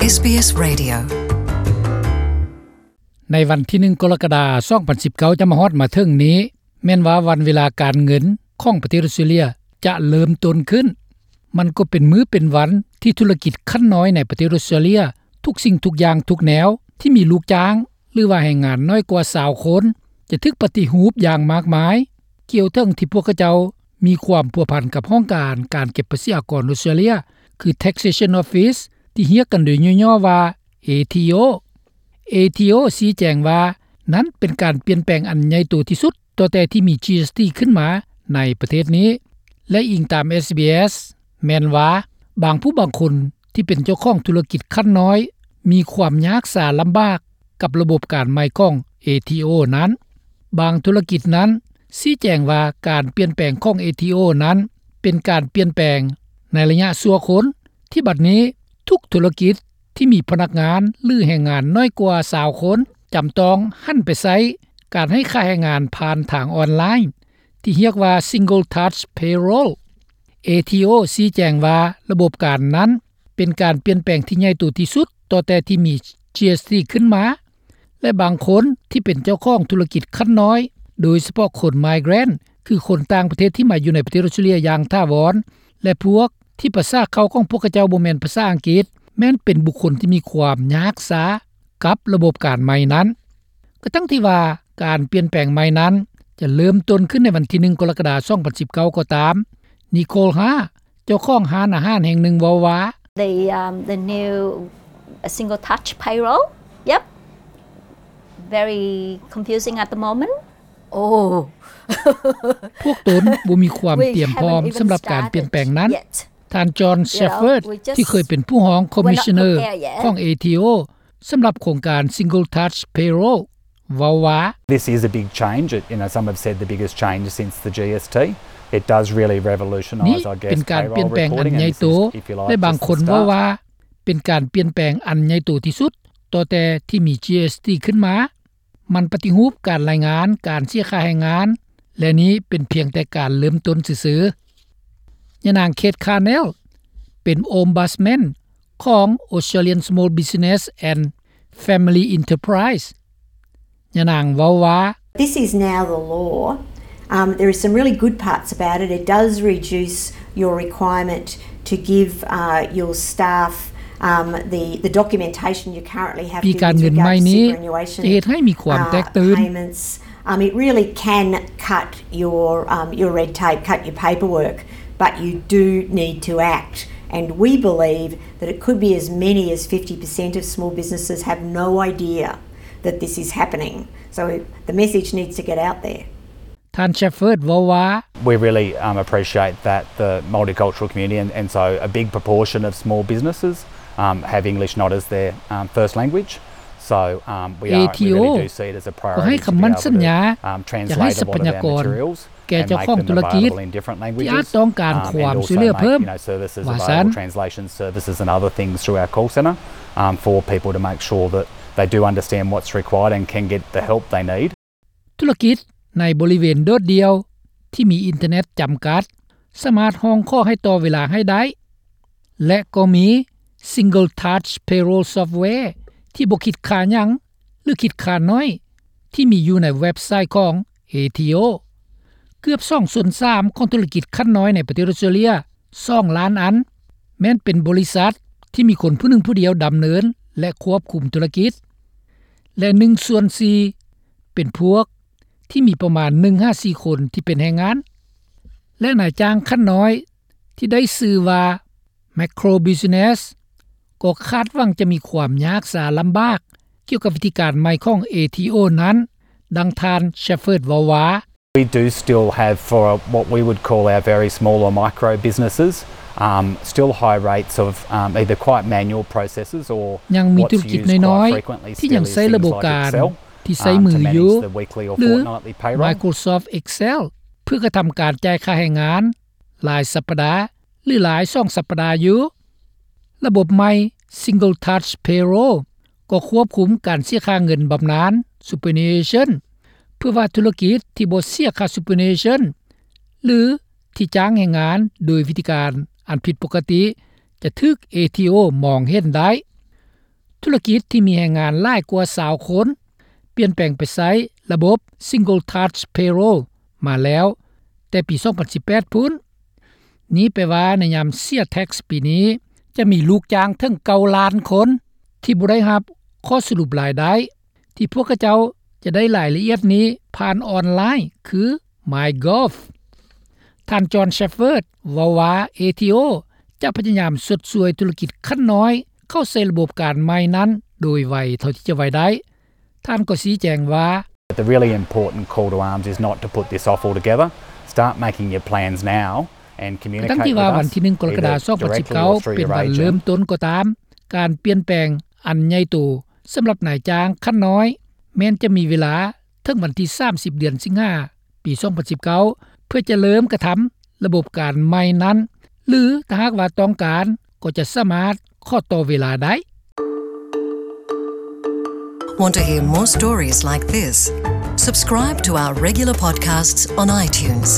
ເອສບີເອສ Radio ໃນວັນທີໜຶ່ງ ກໍລະກະດາ ສອງພັນສິບເກົ້າ ຈະມາຮອດມາເຖິງນີ້ ແມ່ນວ່າວັນເວລາການເງິນຂອງປະເທດອອສເຕຣເລຍຈະເລີ່ມຕົ້ນຂຶ້ນ. ມັນກໍເປັນມື້ເປັນວັນທີ່ທຸລະກິດຂັ້ນນ້ອຍໃນປະເທດອອສເຕຣເລຍ ທຸກສິ່ງທຸກຢ່າງທຸກແນວທີ່ມີລູກຈ້າງ ຫຼືວ່າແຮງງານໜ້ອຍກວ່າຊາວຄົນ ຈະຖືກປະຕິຮູບຢ່າງມາກມາຍ ກ່ຽວເຖິງທີ່ພວກເຂົາເຈົ້າມີຄວາມພົວພັນກັບຫ້ອງການການເກັບພາສີອາກອນອອສເຕຣເລຍ ຄື Taxation Office ທີ່ຮຽກກັນໂດຍຫຍໍ້ໆວ່າ ເອທີໂອ. ເອທີໂອ ຊີ້ແຈງວ່າ ນັ້ນເປັນການປ່ຽນແປງອັນໃຫຍ່ໂຕທີ່ສຸດ ຕໍ່ແຕ່ທີ່ມີ ຈີເອສທີ ຂຶ້ນມາໃນປະເທດນີ້ ແລະ ອີງຕາມ ເອສບີເອສ ແມ່ນວ່າ ບາງຜູ້ບາງຄົນທີ່ເປັນເຈົ້າຂອງທຸລະກິດຂັ້ນນ້ອຍ ມີຄວາມຍາກຊາລຳບາກກັບລະບົບການໃໝ່ຂອງ ເອທີໂອ ນັ້ນ. ບາງທຸລະກິດນັ້ນຊີ້ແຈງວ່າ ການປ່ຽນແປງຂອງ ເອທີໂອ ນັ້ນ ເປັນການປ່ຽນແປງໃນໄລຍະຊົ່ວຄົນ ທີ່ບັດນີ້ທຸກທຸລະກິດທີ່ມີພະນັກງານ ຫຼື ແຮງງານໜ້ອຍກວ່າຊາວຄົນ ຈຳຕ້ອງຫັນໄປໃຊ້ການໃຫ້ຄ່າແຮງງານຜ່ານທາງອອນລາຍ ທີ່ຮຽກວ່າ Single Touch Payroll. ເອທີໂອ ຊີ້ແຈງວ່າ ລະບົບການນັ້ນເປັນການປ່ຽນແປງທີ່ໃຫຍ່ໂຕທີ່ສຸດ ຕໍ່ແຕ່ທີ່ມີ ຈີເອສທີ ຂຶ້ນມາ ແລະ ບາງຄົນທີ່ເປັນເຈົ້າຂອງທຸລະກິດຂັ້ນນ້ອຍ ໂດຍສະເພາະຄົນ migrant ຄືຄົນຕ່າງປະເທດທີ່ມາຢູ່ໃນປະເທດອອສເຕຣເລຍຢ່າງຖາວອນ ແລະ ພວກທີ່ພາສາເຄົ້າຂອງພວກເຂົາເຈົ້າບໍ່ແມ່ນພາສາອັງກິດ ແມ່ນເປັນບຸກຄົນທີ່ມີຄວາມຍາກຊາກັບລະບົບການໃໝ່ນັ້ນ. ກະທັ່ງທີ່ວ່າການປ່ຽນແປງໃໝ່ນັ້ນຈະເລີ່ມຕົ້ນຂຶ້ນໃນວັນທີໜຶ່ງ ກໍລະກະດາ ສອງພັນສິບເກົ້າ ກໍຕາມ, ນິໂຄລ ຮາ ເຈົ້າຂອງຮ້ານອາຫານແຫ່ງໜຶ່ງເວົ້າວ່າ The, um, the new single touch payroll. Yep. Very confusing at the moment. Oh. ພວກຕົນບໍ່ມີຄວາມຕຽມພ້ອມສຳລັບການປ່ຽນແປງນັ້ນ. ທ່ານ ຈອນ ແຊັບເຟີດ ທີ່ເຄີຍເປັນຜູ້ຮອງຄອມມິຊເນີຂອງ ເອທີໂອ ສຳລັບໂຄງການ Single Touch Payroll ເວົ້າວ່າ This is a big change. It, you know, some have said the biggest change since the ຈີເອສທີ. It does really revolutionise, I guess, payroll reporting, and this is, if you like, just the start. ນີ້ເປັນການປ່ຽນແປງອັນໃຫຍ່ໂຕ ແລະ ບາງຄົນເວົ້າວ່າ ເປັນການປ່ຽນແປງອັນໃຫຍ່ໂຕທີ່ສຸດ ຕໍ່ແຕ່ທີ່ມີ ຈີເອສທີ ຂຶ້ນມາ. ມັນປະຕິຮູບການລາຍງານການເສຍຄ່າແຮງງານ ແລະ ນີ້ເປັນພຽງແຕ່ການເລີ່ມຕົ້ນຊື່ໆ. ຍານາງ ເຄດ ຄາແນລ ເປັນ Ombudsman ຂອງ Australian Small Business and Family Enterprise. ຍານາງເວົ້າວ່າ This is now the law. Um, there are some really good parts about it. It does reduce your requirement to give, uh, your staff, um, the, the documentation you currently have to with regards to superannuation, uh, payments. ປີການເງິນໃໝ່ນີ້ຈະເຮັດໃຫ້ມີຄວາມແຕກຕື່ນ. Um, it really can cut your, um, your red tape, cut your paperwork, but you do need to act. And we believe that it could be as many as fifty percent of small businesses have no idea that this is happening. So the message needs to get out there. ທ່ານ ແຊັບເຟີດ ເວົ້າວ່າ We really, um, appreciate that the multicultural community and, and so a big proportion of small businesses, um, have English not as their, um, first language. So, um, we are, we really do see it as a priority to be able to, um, translate a lot of our materials and make them available in different languages, um, and also make them available in English. ເອທີໂອ ກໍໃຫ້ຄຳໝັ້ນສັນຍາ ຈະໃຫ້ຊັບພະຍາກອນແກ່ເຈົ້າຂອງທຸລະກິດທີ່ອາດຕ້ອງການຄວາມຊ່ວຍເຫຼືອເພີ່ມ ວ່າຊັ້ນ. For people to make sure that they do understand what's required and can get the help they need. ທຸລະກິດໃນບໍລິເວນໂດດດ່ຽວທີ່ມີອິນເຕີເນັດຈຳກັດ ສາມາດຮ້ອງຂໍໃຫ້ຕໍ່ເວລາໃຫ້ໄດ້ ແລະ ກໍມີ Single Touch Payroll Software ທີ່ບໍ່ຄິດຄ່າຫຍັງ ຫຼື ຄິດຄ່າໜ້ອຍ ທີ່ມີຢູ່ໃນເວັບໄຊຂອງ ເອທີໂອ. ເກືອບສອງສ່ວນສາມຂອງທຸລະກິດຂັ້ນນ້ອຍໃນປະເທດອອສເຕຣເລຍ ສອງລ້ານອັນ ແມ່ນເປັນບໍລິສັດທີ່ມີຄົນຜູ້ໜຶ່ງຜູ້ດຽວດຳເນີນ ແລະ ຄວບຄຸມທຸລະກິດ ແລະ ໜຶ່ງສ່ວນສີ່ເປັນພວກທີ່ມີປະມານໜຶ່ງຫາສີ່ຄົນທີ່ເປັນແຮງງານ ແລະ ນາຍຈ້າງຂັ້ນນ້ອຍທີ່ໄດ້ຊື່ວ່າ Micro Business ກໍຄາດຫວັງຈະມີຄວາມຍາກຊາລຳບາກກ່ຽວກັບວິທີການໃໝ່ຂອງ ເອທີໂອ ນັ້ນ, ດັ່ງທ່ານ Shepherd ເວົ້າວ່າ We do still have, for what we would call our very small or micro businesses, um, still high rates of, um, either quite manual processes or what's used quite frequently still is things like Excel, um, to manage the weekly or fortnightly payroll. ຍັງມີທຸລະກິດນ້ອຍໆທີ່ຍັງໃຊ້ລະບົບການທີ່ໃຊ້ມືຢູ່ ຫຼື Microsoft Excel ເພື່ອກະທຳການຈ່າຍຄ່າແຮງງານລາຍສັບປະດາ ຫຼື ຫຼາຍສອງສັບປະດາຢູ່. ລະບົບໃໝ່ Single Touch Payroll ກໍຄວບຄຸມການເສຍຄ່າເງິນບຳນານ Superannuation ເພື່ອວ່າທຸລະກິດທີ່ບໍ່ເສຍຄ່າ Superannuation ຫຼື ທີ່ຈ້າງແຮງງານໂດຍວິທີການອັນຜິດປົກກະຕິ ຈະຖືກ ເອທີໂອ ມອງເຫັນໄດ້. ທຸລະກິດທີ່ມີແຮງງານຫຼາຍກວ່າຊາວຄົນ ປ່ຽນແປງໄປໃຊ້ລະບົບ Single Touch Payroll ມາແລ້ວແຕ່ປີສອງພັນສິບແປດພຸ້ນ. ນີ້ແປວ່າໃນຍາມເສຍແທັກປີນີ້ ຈະມີລູກຈ້າງເຖິງເກົ້າລ້ານຄົນ ທີ່ບໍ່ໄດ້ຮັບຂໍ້ສະຫຼຸບລາຍໄດ້ ທີ່ພວກເຂົາເຈົ້າຈະໄດ້ລາຍລະອຽດນີ້ຜ່ານອອນລາຍ ຄື MyGov. ທ່ານ John Shepherd ເວົ້າວ່າ ເອທີໂອ ຈະພະຍາຍາມຊົດຊ່ວຍທຸລະກິດຂັ້ນນ້ອຍ ເຂົ້າໃສ່ລະບົບການໃໝ່ນັ້ນໂດຍໄວເທົ່າທີ່ຈະໄວໄດ້. ທ່ານກໍຊີ້ແຈງວ່າ But the really important call to arms is not to put this off altogether. Start making your plans now and communicate with us, ກະທັ້ງທີ່ວ່າວັນທີໜຶ່ງ ກໍລະກະດາ ສອງພັນສິບເກົ້າ ເປັນວັນເລີ່ມຕົ້ນກໍຕາມ, ການປ່ຽນແປງອັນໃຫຍ່ໂຕສຳລັບນາຍຈ້າງຂັ້ນນ້ອຍ ແມ່ນຈະມີເວລາເຖິງວັນທີສາມສິບ ເດືອນສິງຫາ ປີສອງພັນສິບເກົ້າ ເພື່ອຈະເລີ່ມກະທຳລະບົບການໃໝ່ນັ້ນ ຫຼື ຖ້າຫາກວ່າຕ້ອງການ ກໍຈະສາມາດຂໍຕໍ່ເວລາໄດ້. Want to hear more stories like this? Subscribe to our regular podcasts on iTunes.